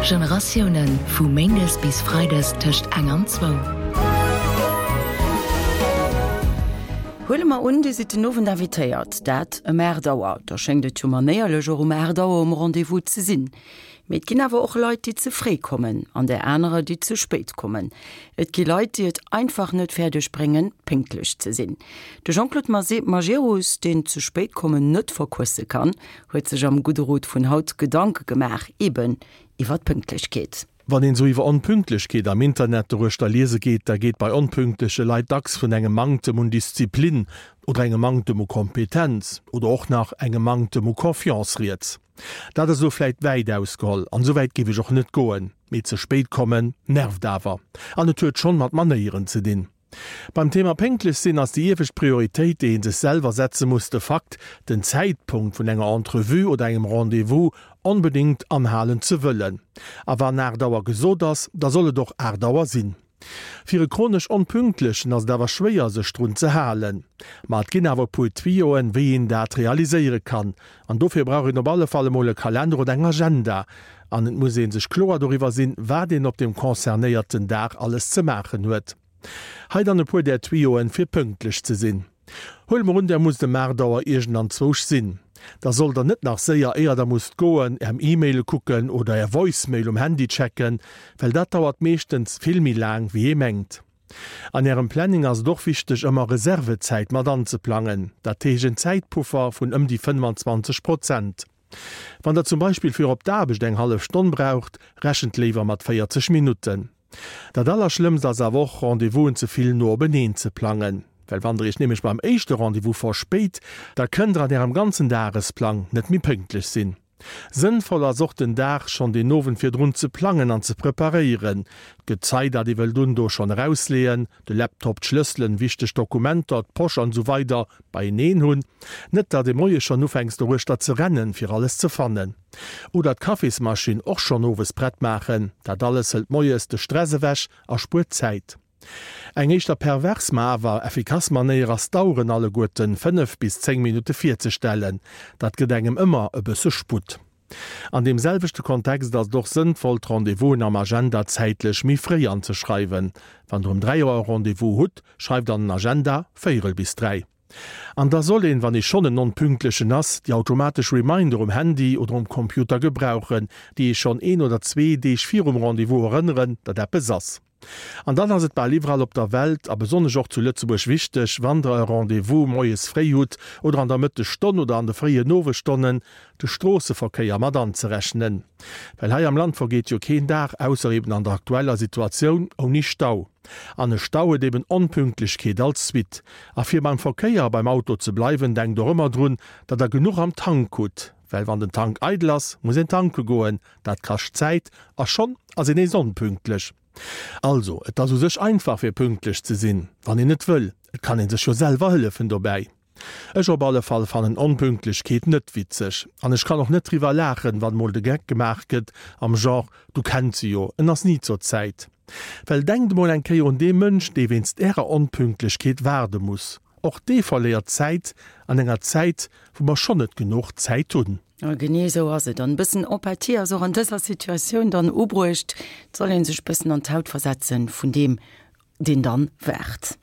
Generatiounen, vu méindes bis freides tëscht eng an zwou. Huele mer un, Dir sidd den Owend invitéiert, dat ëm 8 Auer. Da schéngt et jo manéierlech, och um 8 Auer um Rendez-vous ze sinn. Mee et ginn awer och Leit, déi ze fréi kommen an där anerer, déi ze spéit kommen. Et gi Leit, déi et einfach net fäerdeg bréngen, pénktlech ze sinn. De Jean-Claude Majerus, deen ze spéit kommen net verquësse kann, huet sech am Gudde Rot vun haut Gedanke gemaach, eben iwwer d'Pünktlechkeet. Wann een sou iwwer Onpünktlechkeet am Internet doruechter liese geet, da geet bei onpünktleche Leit dacks vun engem Manktem un Disziplin oder engem Manktem u Kompetenz oder och nach engem Manktem u Confiance rieds. Dat ass elo vläit wäit ausgeholl, an esou wäit géif ech och net goen, mee ze spéit kommen nervt awer, an et huet schonn mat Manéieren ze dinn. Beim Thema pénktlech sinn ass déi iewescht Prioritéit, déi ee sech selwer setze muss, de Fakt, den Zäitpunkt vun enger Entrevue oder engem Rendez-vous onbedéngt anhalen ze wëllen. A wann 8 Auer gesot ass, da soll et och 8 Auer sinn. Fir e chronesch Onpünktlechen ass et awer schwéier sech drun ze halen. Ma et ginn awer e puer Tuyauxen, wéi een dat realiséiere kann. An dofir brauch een op alle Fall emol e Kalender oder eng Agenda. An et muss ee sech kloer doriwwer sinn, wat een op deem concernéierten Dag alles ze maachen huet. Hei dann e puer där Tuyauxen, fir pünktlech ze sinn. Huele mer un, der musst ëm 8 Auer iergendanzwousch sinn. Da sollt der net nach séier, éier der musst goen, är E-Maile kucken oder är Voicemail um Handy checken, well dat dauert meeschtens vill méi laang, wéi ee mengt. An ärem Planning ass et och wichteg, ëmmer Reservezäit mat anzeplangen, dat heescht en Zäitpuffer vun ëm déi 25 Prozent. Wann der zum Beispill fir op d'Aarbecht eng hallef Stonn braucht, rechent léiwer mat 40 Minutten. Dat allerschlëmmst ass awer och, Rendez-vousen ze vill no openeen ze plangen. Well wann der iech nämlech beim éischte Rendez-vous verspéit, da kënnt der an ärem ganzen Dagesplang net méi pénktlech sinn. Sënnvoll ass och, den Dag schonn den Owend virdrun ze plangen an ze preparéieren. D'Gezei, dat ee wëllt un, do schonn erausleeën, de Laptop, d'Schlësselen, wichteg Dokumenter, d'Posch an esou weider beieneen hunn. Net datt ee moies schonn ufänks doruechter ze rennen, fir alles ze fannen. Oder d'Kaffismaschinn och schonn owes prett maachen. Dat alles hëlt moies de Stress ewech a spuert Zäit. Eng éischter pervers, ma awer effikass Manéier ass d'Aueren alleguerten 5 bis 10 Minutte virzestellen. Dat gëtt engem ëmmer e bësse Sputt. An deem selwechte Kontext ass et och sënnvoll, d'Rendez-vousen am Agenda zäitlech méi fréi anzeschreiwen. Wann der um 3 Auer e Rendez-vous hutt, schreift an den Agenda véierel bis 3. An da soll een, wann ee schonn en Onpünktlechen ass, déi automatesch Reminder um Handy oder um Computer gebrauchen, déi ee schonn een oder zwee Deeg virum Rendez-vous erënneren, datt eppes ass. An dann ass et bal iwwerall op der Welt, a besonnesch och zu Lëtzebuerg wichteg, wann der e Rendez-vous moies fréi hutt oder an der Mëttesstonn oder an de fréien Owesstonnen, de Stroosseverkéier mat anzerechnen. Well hei am Land vergeet jo keen Dag, ausser eben an der aktueller Situatioun, ouni Stau. An e Stau huet eben Onpünktlechkeet als Suite. A fir beim Verkéier a beim Auto ze bleiwen, denkt och ëmmer drun, datt der genuch am Tank hutt. Well wann den Tank eidel ass, muss een tanke goen, dat kascht Zäit a schonn ass een nees onpünktlech. Also, et ass u sech einfach fir pünktlech ze sinn, wann een et wëll. Et kann een sech jo selwer hëllefen dobäi. Ech op alle Fall fannen Onpünktlechkeet net witzeg an ech kann och net driwwer laachen, wann mol de Geck gemaach gëtt am Genre, du kenns se jo, en ass ni zur Zäit. Well denkt mol eng Kéier un dee Mënsch, dee wéinst ärer Onpünktlechkeet waarde muss. Och dee verléiert Zäit an enger Zäit, wou mer schonn net genuch Zäit hunn. A genee esou ass et. An e bëssen Empathie ass och an dëser Situatioun dann ubruecht. Et soll ee sech bëssen an d'Haut versetzen vun deem, deen dann waart.